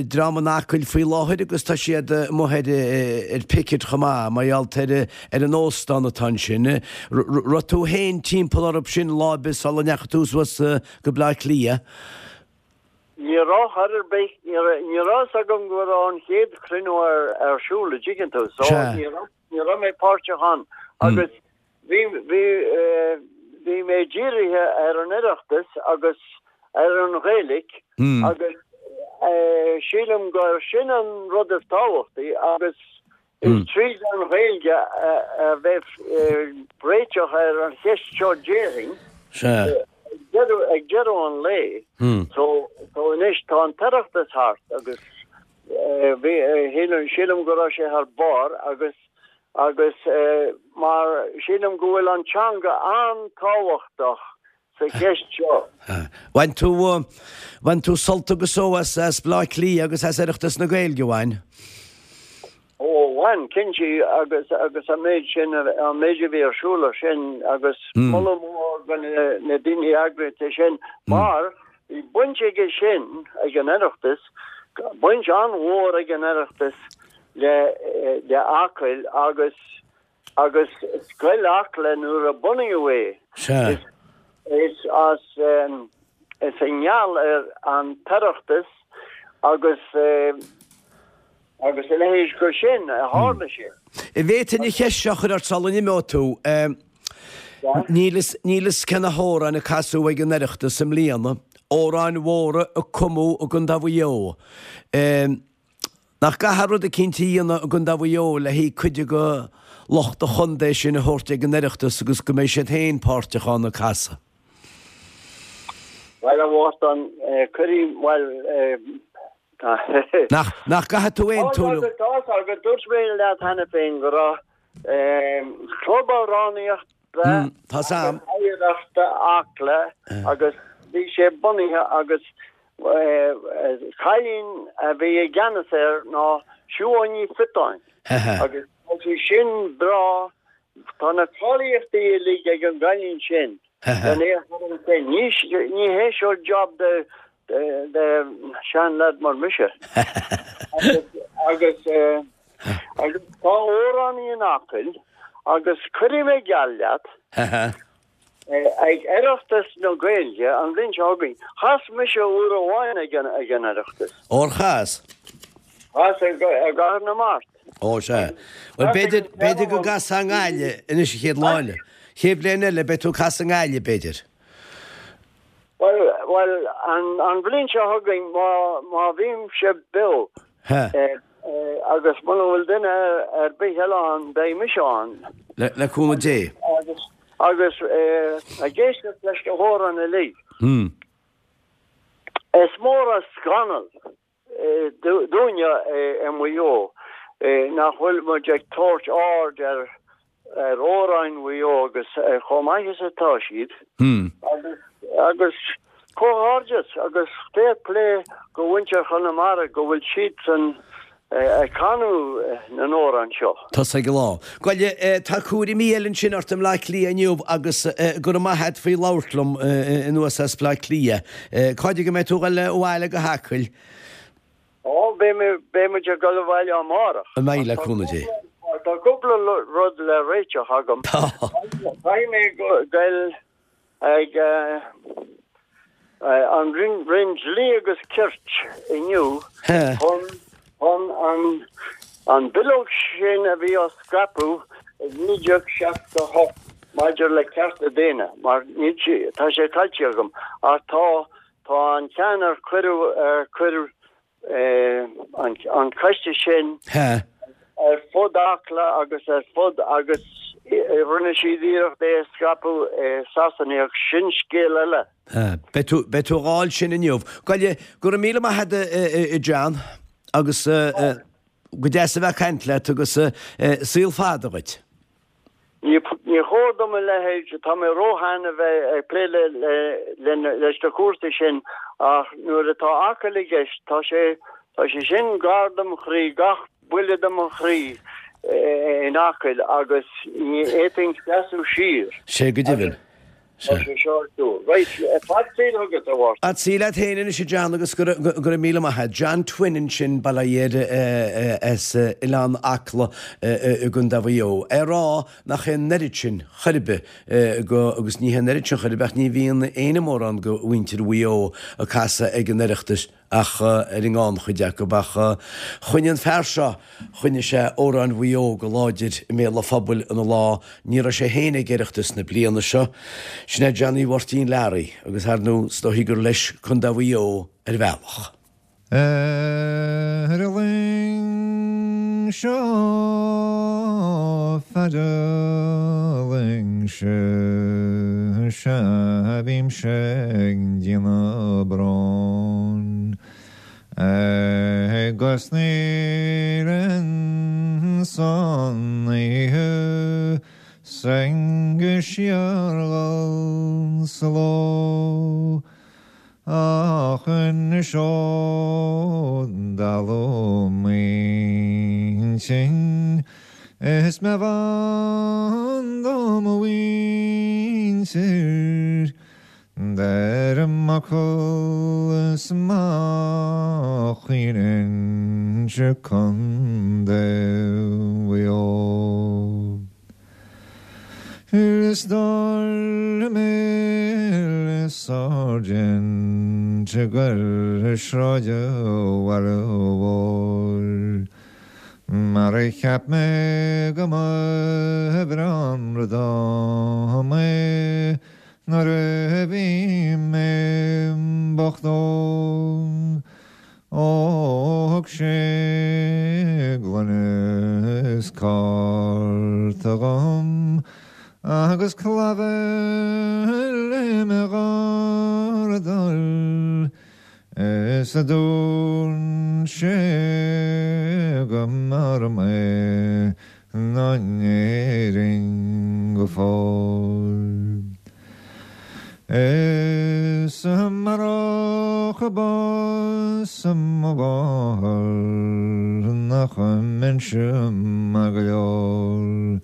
dream in Acaill faoi láthair agus tá siad amuigh ar ar picket chomh maith mar gheall ar ar an óstán atá ansin. Raibh tú féin timpeall orthu sin lá ar bith sula ndeachaigh tú suas go Bleá Cliath? Ní raibh chor ar bith, ní raibh ní raibh fhios agam go raibh an chéad chruinniú ar ar siúl, a dtuigeann tú, so ní raibh ní raibh mé páirteach ann agus Bhí, bhí, bhí mé dírithe ar an Oireachtas agus ar an Ghaeilic agus sílim gur sin an rud is tábhachtaí agus is tríd an Ghaeilge a bheidh réiteach ar an cheist seo déarfainn ag deireadh an lae. So, so anois tá an tOireachtas thart agus bhí, sílim go raibh sé thar barr agus agus mar sílim go bhfuil an teanga an-tábhachtach sa cheist seo. Bhain tú, bhain tú sult agus só as, as Bleá Cliath agus as Oireachtas na Gaeilge, bhain? Ó, bhain, cinnte, agus, agus an méid sin, an méid a bhí ar siúl ansin agus moladh mór do na, na daoine a eagraigh é sin mar bhí baint aige sin, ag an Oireachtas, baint an-mhór ag an Oireachtas le le Acaill agus agus Scoil Acla nuair a bunaíodh é. Sea. Is as is i ngeall ar an tOireachtas agus agus a leithéid de sin a tharla sé. An bhféadfainn an cheist seo a chur ort sula n-imeoidh tú. Níl fhios níl fhios cé na hamhráin a casadh ag an Oireachtas i mbliana, amhráin mhóra a cumadh i gContae Mhaigh Eo. Nach gcaithfear rud eicínt a dhéanamh i gContae Mhaigh Eo le haghaidh cuid de lucht an chontae sin a thabhairt ag an Oireachtas agus go mbeidh siad féin páirteach ann ag casadh? Bhuel, a Mhártain, cuirfidh, bhuel, tá. Nach, nach gcaithfidh tú aontú liom? Tá a fhios agat, dúirt mé leat cheana féin go raibh Club Amhránaíochta Tá agus Oidhreachta Acla agus bhí sé bunaithe agus Cailín a bhí i gceannas air ná Siobhán Ní Phiotáin agus tá sí sin breá, tá na cáilíochtaí uilig ag an gcailín sin len é a chur ansin. Ní hé seo job de de seanleaid mar mise. Agus agus tá amhránaí in Acaill agus cuirfidh mé geall leat Ag Oireachtas na Gaeilge an bhliain seo chugainn, chas mise uair amháin ag an Oireachtas. Ór chas? Chas i gCathair na Mart. Ó sea. Bhuel b'fhéidir, b'fhéidir go gcasfá i nGaillimh anois an chéad lá eile. Chéad bhliain eile beidh tú ag casadh i nGaillimh b'fhéidir. Bhuel, bhuel, an, an bhliain seo chugainn má, má bhímse beo, agus muna bhfuil duine ar bith eile ann, beidh mise ann. Le, le cúnamh Dé. Agus Agus ag éisteacht leis na hamhráin uilig, is mór an scannal dúinne i Maigh Eo nach bhfuil muid ag tabhairt aird ar amhráin Mhaigh Eo agus chomh maith is atá siad. Agus comhghairdeas agus fair play go mhuintir Chonamara go bhfuil siadsan ag canadh na n-amhrán seo. Tusa ag an lá. Gabh i leith, tá cúraimí eile ansin ort i mBleá Cliath inniu agus go raibh maith a't faoi labhairt liom anuas as Bleá Cliath. Cá fhad go mbeidh tú ag dul abhaile go hAcaill? Ó, beidh muid ag dul abhaile amárach. An mbeidh, le cúnamh Dé. Tá cúpla rud le réiteach agam. Tá. Caithfidh mé goil ag an Roinn Dlí agus Cirt inniu chun chun an bileog sin a bhí á scaipeadh i 1968 maidir le cearta daonna, mar níl sé, tá sé caillte agam, ach tá, tá an ceann ar cuireadh, ar cuireadh an coiste sin ar fud Acla agus ar fud agus rinne siad iarracht é a scaipeadh i Sasana ach sin scéal eile. Beidh tú, beidh tú a dh'fháil sin inniu. Gabh i leith, go raibh míle maith agat a John agus go deas a bheith ag caint leat agus saol fada dhuit. Ní chóir dom a leithéid, tá mé róshean a bheith ag plé leis na cúrsaí sin ach nuair atá Acaill i gceist, tá sé, tá sé sin gar dom chroí, gach buille de mo chroí in Acaill agus ní fhéadfainn seasamh siar. Sé go deimhin. Tá sé seo ar siúl. Right, fad saoil chugat, a Mháirtín. Fad saoil leat féin anois, a John, agus go raibh míle maith agat. John Twin ansin, Baile Átha as Oileán Acla i gContae Mhaigh Eo. É ag rá nach é an oiread sin chor ar bith go, agus ní hé an oiread sin chor ar bith ach ní bhíonn éinne mórán go mhuintir Mhaigh Eo ag casadh ag an Oireachtas ach ar an ngannchuid acu. Ach choinnigh an fear seo, choinnigh sé amhráin Mhaigh Eo go láidir i mbéal an phobail ina lá. Ní raibh sé féin ag Oireachtas na bliana seo. Sin é Johnny Mháirtín Learaí agus ar ndóigh is dóichí gur leis Contae Mhaigh Eo ar bhealach. Ar an luing seo feadh an luing seo sea bímse ag déanamh bróin agus níl insan oíche 's go síorghal sa ló. Ach anois ó dalladh m'intinn is mé bhan do mo mhuintir, deirim Acaill is má chaoineann Contae Mhaigh Eo. Is dar le mé le Sáirsint ag goil sráid an bhaile mhóir Mar a cheap mé go mba bhreá an rud dom é nuair a bhí mé bocht óg. Ó thug sé gloine is cárta dhom agus clabhar le mo dhardal is a dúirt sé go mb'fhearr mé ná in Éirinn go fóill. Is amárach bás mo mháthar nach mbeinnse maith go leor.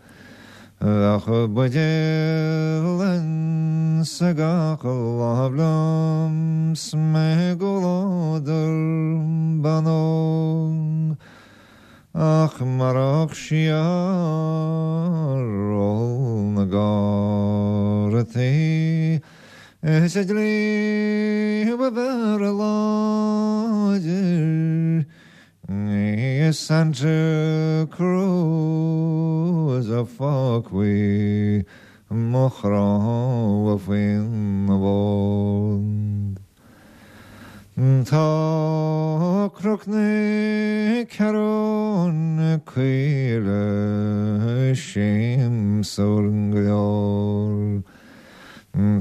Bheadh buidéal insa gach lámh liom 's mé i gcomhluadar ban óg. Ach marach siar ól na gcártaí is an dlí ba bhfearr láidir ní i Santa Cruz a fágfaí mo chnámha faoina bhord. Tá Cnoc na Ceathrún Caoile siamsúil go leor.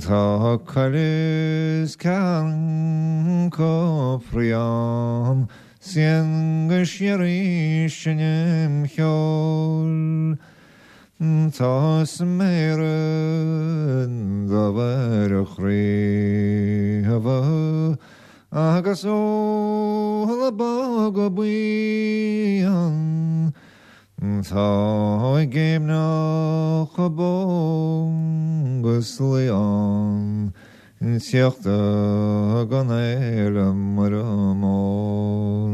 Tá coill is ceathrún cófraí ann 's éan go síoraí seinm cheoil. Tá sméara dubha ar a chraobha agus eola bog buí ann. Tá i gcéimneach bó agus lao ann tíocht don fhéile Muire Mór.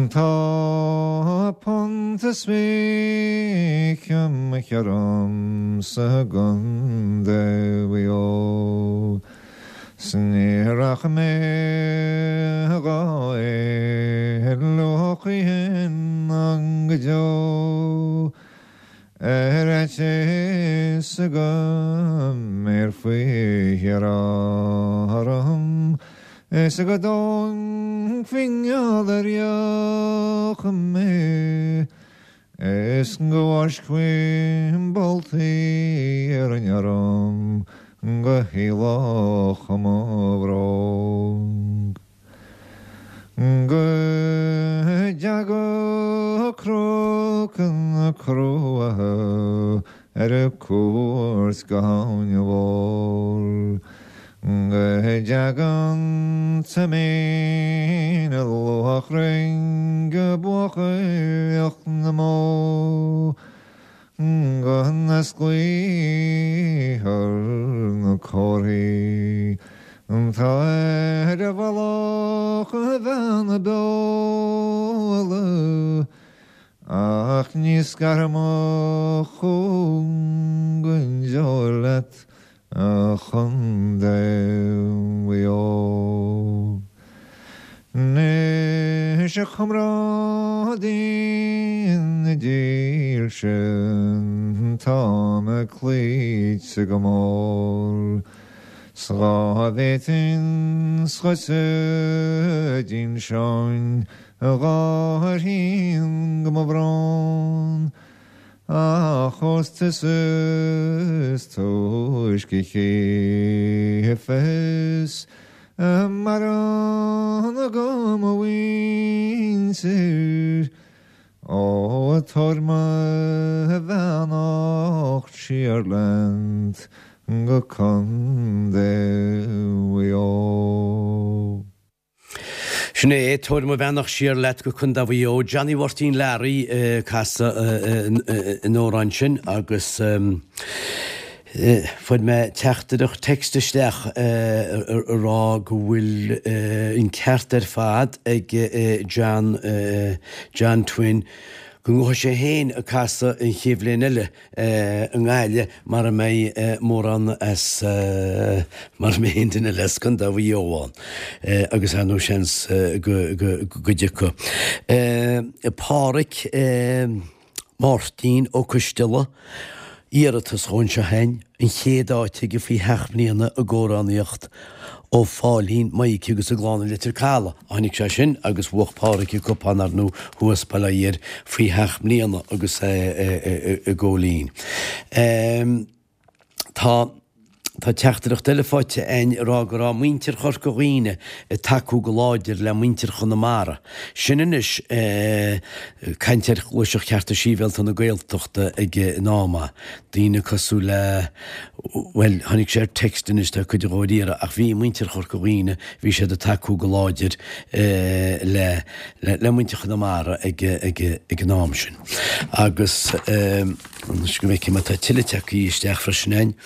Tá. Punt is 20 mo cheann sa gContae Mhaigh Eo. 'S ní rachaidh mé dhá éaló choíchin ná go deo. Ar fhaitíos go mbéarfaí thiar orm is go dtógfaí geall ar dheoch mé is go bhfáiscfí boltaí iarainn orm go héalódh mo bhróg. Go dteaga Cnoc na Cruacha ar cuairt go hAbhainn Mhór. Go dteaga an Toimín Luachrainn go buachailleacht na mbó. Go n-osclaíthear na comharthaí atá ar mhullach Bheanna Beola, ach ní scarfaidh mo chúng go deo leat, A Chontae Mhaigh Eo. Anois a chomrádaí na dílse, tá mé cloíte go mór 's dhá bhféadfainn dhuitse d'inseoinn dhá thrian go mo bhrón. Ach ós tusa is túisce a chífeas a mbarán go mo mhuintir, ó tabhair mo bheannacht siar leat go Contae Mhaigh Eo. Sin é, tabhair mo bheannacht siar leat go Contae Mhaigh Eo. Johnny Mháirtín Learaí ag casadh an amhráin sin agus fuair mé teachtaireacht text isteach ag rá go bhfuil an ceart ar fad ag John John Twin go ngabhfaidh sé féin ag casadh an chéad bhliain eile i nGaillimh mara mbeidh mórán as, mara mbeidh aon duine eile as Contae Mhaigh Eo ann agus ar ndóigh seans go dtiocfaidh. Páraic Máirtín Ó Coisteala, iarratas dhó anseo féin, an chéad áit aige faoi sheacht mbliana i gcomhránaíocht ó Phóilín, Maidhcí agus a gclann i Leitir Caladh. Tháinig sé sin agus bhuach Páraic an cupán ar ndóigh thuas Baile Átha Fhirdh faoi sheacht mbliana agus é i gCóilín. Tá Tá teachtaireacht eile faighte againn ag rá go raibh muintir Chorca Dhuibhne ag tacú go láidir le muintir Chonamara. Sin anois caint ar Ghluaiseacht Chearta Sibhialta na Gaeltachta ag an am. Daoine cosúil le, bhuel, tháinig sé ar text anois, tá cuid dhó ar iarraidh, ach bhí muintir Chorca Dhuibhne, bhí siad ag tacú go láidir le, le muintir Chonamara ag, ag, ag an am sin. Agus anois go bhfeicfidh mé, tá tuilleadh tagtha isteach freisin againn.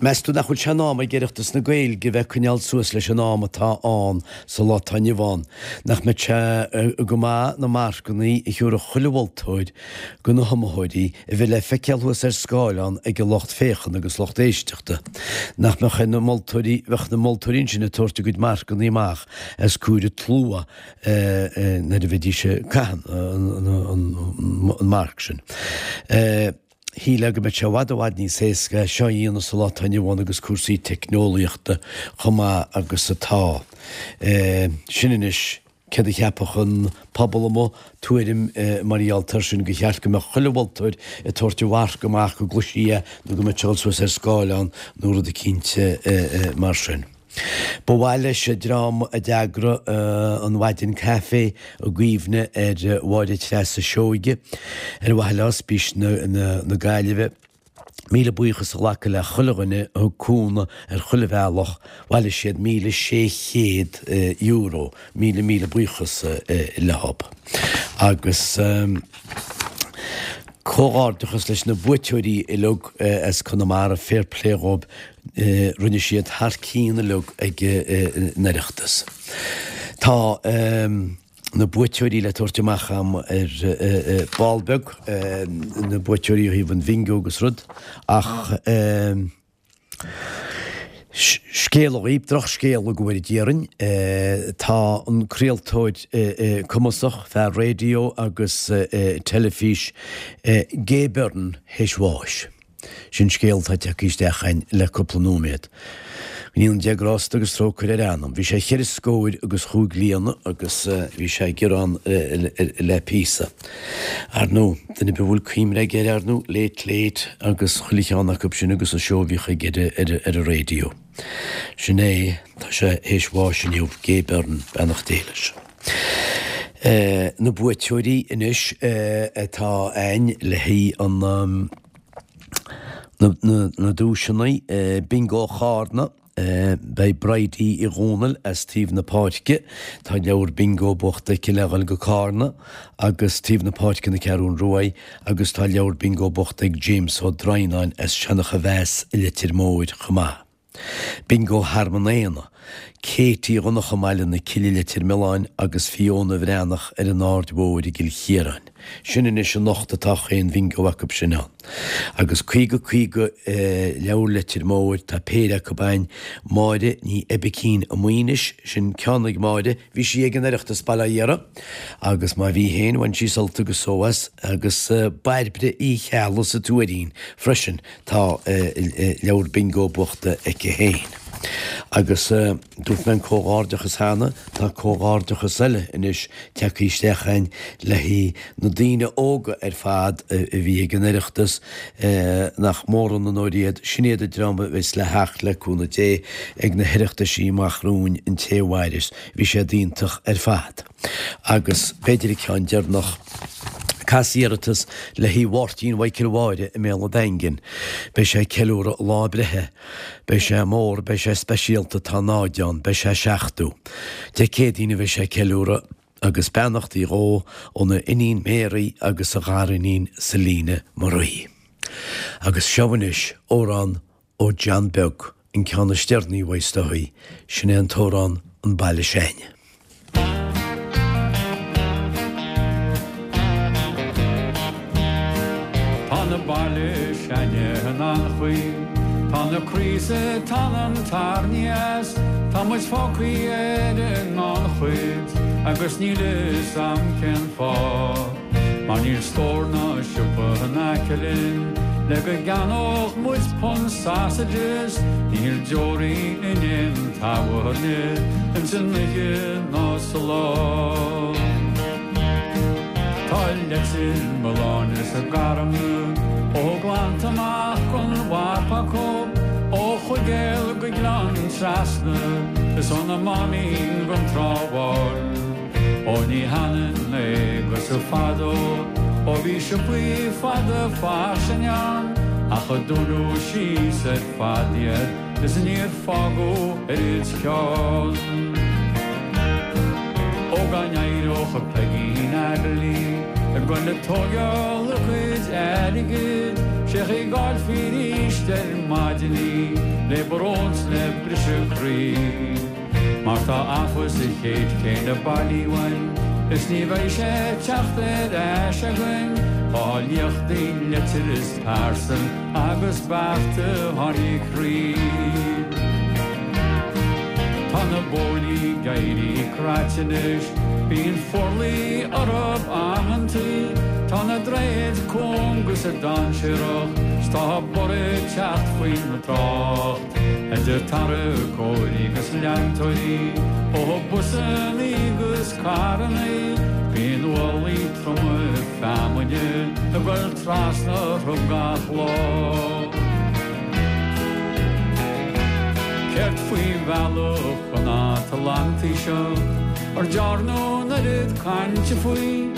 Meas tú nach bhfuil sé in am ag Oireachtas na Gaeilge a bheith ag coinneáil suas leis an am atá ann sa lá atá inniu ann? Nach mbeadh sé go maith na marcanna a thiúrfadh chuile mholtóir go na hiomaitheoirí a bheith le feiceáil thuas ar scáileán ag an lucht féachana agus lucht éisteachta? Nach mbeadh ar na moltóirí, bheadh na moltóirí ansin ag tabhairt a gcuid marcanna amach os comhair an tslua nuair a bheidís ag caitheamh an marc sin? Shílfeá go mbeadh sé i bhfad i bhfad níos éasca é seo a dhéanamh sa lá atá inniu ann agus cúrsaí teicneolaíochta chomh maith agus atá. Sin anois céard a cheapfadh an pobal amuigh, tuairim mar gheall air sin gur cheart go mbeadh chuile mholtóir ag tabhairt a mharc amach go gcloisfí é nó go mbeadh sé ag dul suas ar scáileán nó rud eicínt mar sin. Ba mhaith leis an dream a d'eagraigh an Mhaidin Caife i gcuimhne ar Mháire Treasa Seoige, ar mhaithe le Ospís na Gaillimhe, míle buíochas a ghlacadh le chuile dhuine a thug cúnamh ar chuile bhealach, bhailigh siad €1,600, míle míle buíochas leob. Agus comhghairdeachas leis na buaiteoirí uilig as Conamara, fair play dhóibh, Rinne siad thar cionn uilig ag an Oireachtas. Tá. na buaiteoirí le tabhairt amach a'm ar ball beag, na buaiteoirí ó thaobh an bhingo agus rud, ach scéala dhaoibh, drochscéala go bhfóire Dia orainn, tá an craoltóir cumasach, fear raidió agus teilifís, Gay Byrne théis bháis. Sin scéal atá tagtha isteach a'inn le cúpla nóiméad. Go ndéana Dia grásta agus trócaire ar a anam. Bhí sé cheithre scóir agus chúig bliana agus bhí sé ag gearán le píosa. Ar ndóigh, duine ar bith a bhfuil cuimhne aige air, ar ndóigh, Late Late agus chuile cheann acu sin agus an seó a bhíodh aige ar an raidió. Sin é, tá sé théis bháis inniu, Gay Byrne, beannacht Dé leis. Na buaiteoirí anois atá a'inn le haghaidh an na duaiseanna Bingo Chárna, beidh Bridie Uí Dhomhnaill as Taobh na Páirce, tá leabhar bingo buachta aici le dhul go Cárna agus Taobh na Páirce na Ceathrún Ruaidh agus tá leabhar bingo buachta ag James Ó Droighneáin as Seancha Mheas i Leitir Móir chomh maith. Bingo Thearmann Éanna, Katie Dhonncha i mBaile na Cille Leitir Mealláin agus Fiona Bhreathnach ar an Aird Mhóir i gCill Chiaráin. Sin anois anocht atá chaon bhingo acu sin ann. Agus 50 50 leabhar Leitir Móir, tá péire acu a'inn, Máire Ní Oibicín i Maínis, sin ceann ag Máire, bhí sí ag an Oireachtas Baile Átha Dara agus má bhí féin bhain sí sult agus só as, agus Bairbre Uí Cheallaigh sa Tuairín freisin, Tá leabhar bingo buachta aici féin. Agus dúirt mé an comhghairdeachas cheana, tá comhghairdeachas eile anois tagtha isteach a'inn le haghaidh na daoine óga ar fad a bhí ag an Oireachtas, nach mór an onóir iad, sin iad an dream a bheas le theacht le cúnamh Dé ag na hOireachtaisí amach romhainn an té a mhaireas. Bhí siad iontach ar fad. Agus b'fhéidir an ceann deireanach, cas iarratas le haghaidh Mháirtín Mhichael Mháire i mBéal an Daingin. Beidh sé ag ceiliúradh a lá breithe. Beidh sé mór, beidh sé speisialta, tá náid ann, beidh sé 70. Dé Céadaoin a bheidh sé ag ceiliúradh agus beannachtaí dhó óna iníon Mary agus a ghariníon Selina Marie. Agus seo anois amhrán Ó John Beag, an ceann is deireanaí uaidh is dóigh, sin é an t-amhrán An Baile S'Ainne. Tá na baile s'ainne in an-chaoi, tá na croí 's an t-anam tarraingthe as, tá muid fágthaí ar an ngannchuid agus níl fhios a'm cén fáth. Mar níl stór ná siopa in aice linn le go gceannódh muid punt sausages, níl deoraí in aon tábhairne ins an oíche ná sa lá. Tá Leitir Mealláin is a Garmna ó glanta amach gon mhap acu, ó Chuigéal go Gleann Trasna is ó na Máimín gon Trá Bháin. Ó ní hionann é agus fadó ó bhí siopaí fada fairsing ann ach a dúnadh síos ar fad iad is níor fágadh oiread ceann. Ó dá n-éireodh Peigín Airlí ag goil ag tóigeáil a cuid airgid sé chaoi go bhfáilfí arís ar maidin í le brón 's le briseadh croí. Mar tá abhus sa chéid chéanna bailí uainn is ní bheidh sé ag teacht ar ais againn Tá liachtaí leitir is pearsan agus bearta tháinig croí. Tá na bóithrí ag éirí craite anois, bíonn forluí orthu amantaí, tá na droichid cúng agus dainséarach 's tá borradh ag teacht faoin trácht. Idir tarracóirí agus leantóirí, ó busannaí agus carrannaí, bíonn ualaí troma feamainne ag goil trasna orthu gach lá. Céard faoi bhealach an Atlantaigh seo, ar dearnadh an oiread cainte faoi?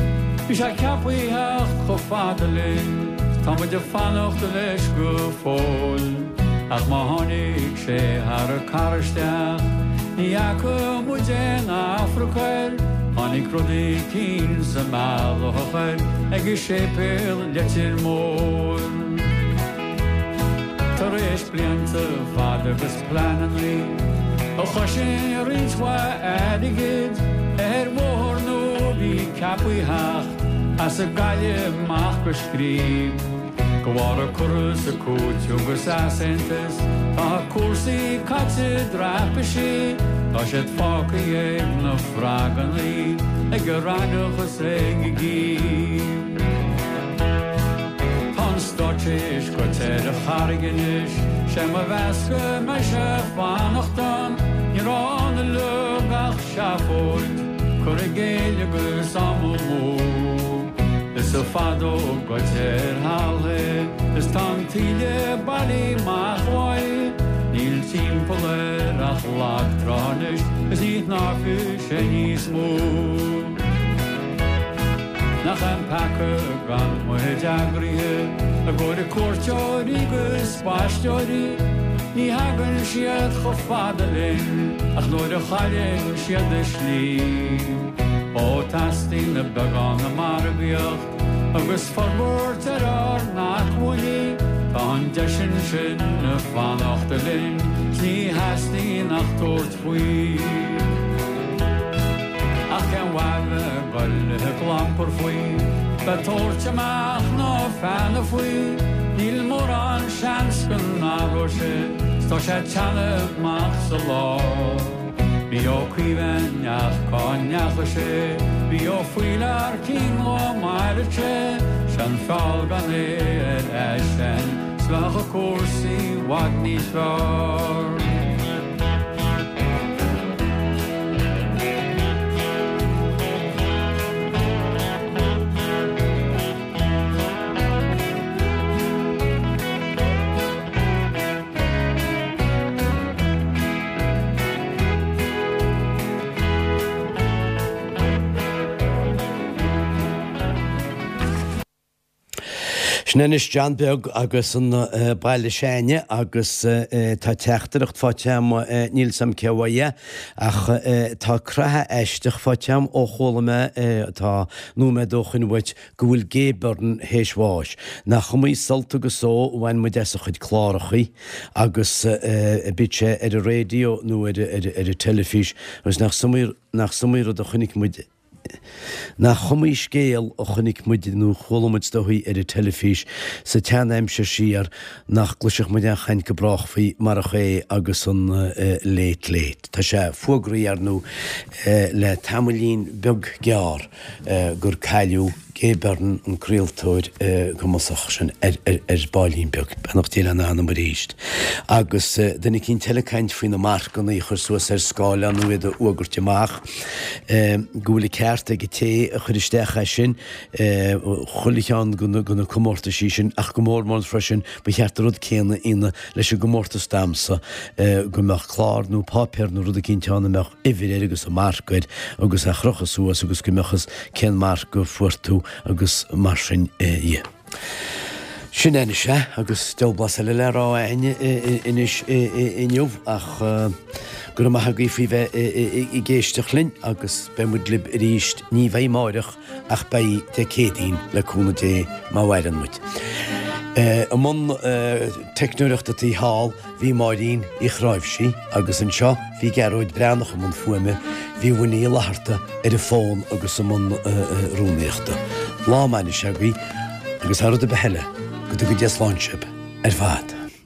Bhí sé ceaptha a theacht chomh fada linn, tá muid ag fanacht leis go fóill. Ach má tháinig sé thar an carr isteach, ní fhaca muid aon afraic air, tháinig rud eicínt sa mbealach air ag an séipéal Leitir Móir. Tar éis blianta fada agus pleanannaí a chosain roinnt mhaith airgid ar bhóthar nua. bhí ceapaí theacht as an gCaillimh amach go Scríb. De bharr an cur is an cúiteamh agus easaontas tá cúrsaí caite i dtraipisí, tá siad fágtha ag na fragannaí, ag an raithneach is ag an gcíb. Tá an stát théis goitse ar an charraig anois, sé mo mheas go mbeidh sé fanacht ann, ní raibh ann uilig ach seafóid, cur i gcéill agus am amú. Is fada ó goitse ar thalamh é, is tá an taoille bailí amach uaidh, níl timpeall air ach lag trá anois is ní shnámhfaidh sé níos mó. Nach é an peaca gan muid eagraithe i gcomhair cuairteoirí 'gus spaisteoirí, ní thagann siad chomh fada linn ach nuair a chailleann siad a slí. Ó teastaíonn beagán de mhargaíocht agus forbairt ar ár n-acmhainní, tá an deis ansin fanacht linn 's ní theastaíonn ach tabhairt faoi. Ach cén mhaith bheith ag goil ag clampar faoi, bheith tabhairt amach na feadhna faoi, níl mórán seans go n-athróidh sé 's tá sé ag teannadh amach sa lá. Bhí Ó Caoimh ach cá ndeachaigh sé? Bhí Ó Faoilearcín lá maireadh sé, 'Sé an feall gan é ar eisean 's bheadh cúrsaí i bhfad níos fearr. Sin anois John Beag agus an Baile S'Ainne agus tá teachtaireacht faighte agam, níl 's a'm cé uaidh é, ach tá creathadh aisteach faighte agam ó chuala mé, tá nóiméad ó shoin uait, go bhfuil Gay Byrne théis bháis. Nach iomaí sult agus só a bhain muid as a chuid clárachaí agus bíodh sé ar an raidió nó ar an teilifís agus nach iomaí rud a chonaic muid, nach iomaí scéal a chonaic muid nó chuala muid is dóichí ar an teilifís sa tsean-aimsir siar nach gcloisfeadh muid aon chaint go brách faoi marach é agus an Late Late. Tá sé fuagraithe ar ndóigh le tamaillín beag gearr. gur cailleadh Gay Byrne, an craoltóir cumasach sin, ar baillín beag. Beannacht Dé lena anam arís. Agus duine eicínt eile ag caint faoi na marcanna a chur suas ar scáileán nó iad a fhuagairt amach, go bhfuil an ceart ag an té a chuir isteach é sin, chuile cheann de na comórtaisí sin, ach go mór mór freisin, ba cheart an rud céanna a dhéanamh leis an gcomórtas damhsa, go mbeadh clár nó páipéar nó rud eicínt ann a mbeadh uimhir air agus an marc air agus é a chrochadh suas agus go mbeadh fhios cén marc a fuair tú agus mar sin dhe. Sin é anois é agus diabhal blas eile le rá a'inn anois inniu ach go raibh maith agaibh faoi bheith ag éisteacht linn agus beidh muid libh arís, ní bheidh amáireach ach beidh Dé Céadaoin le cúnamh Dé má mhaireann muid. I mbun teicneoireachta taobh thall bhí Máirín Uí Chráimhsí agus anseo bhí Gearóid Breathnach i mbun fuaime, bhí Winnie Uí Fhlatharta ar an bhfón agus i mbun rúnaíochta. Lá maith anois agaibh agus thar rud ar bith eile, go dtuga Dia slán sibh ar fad.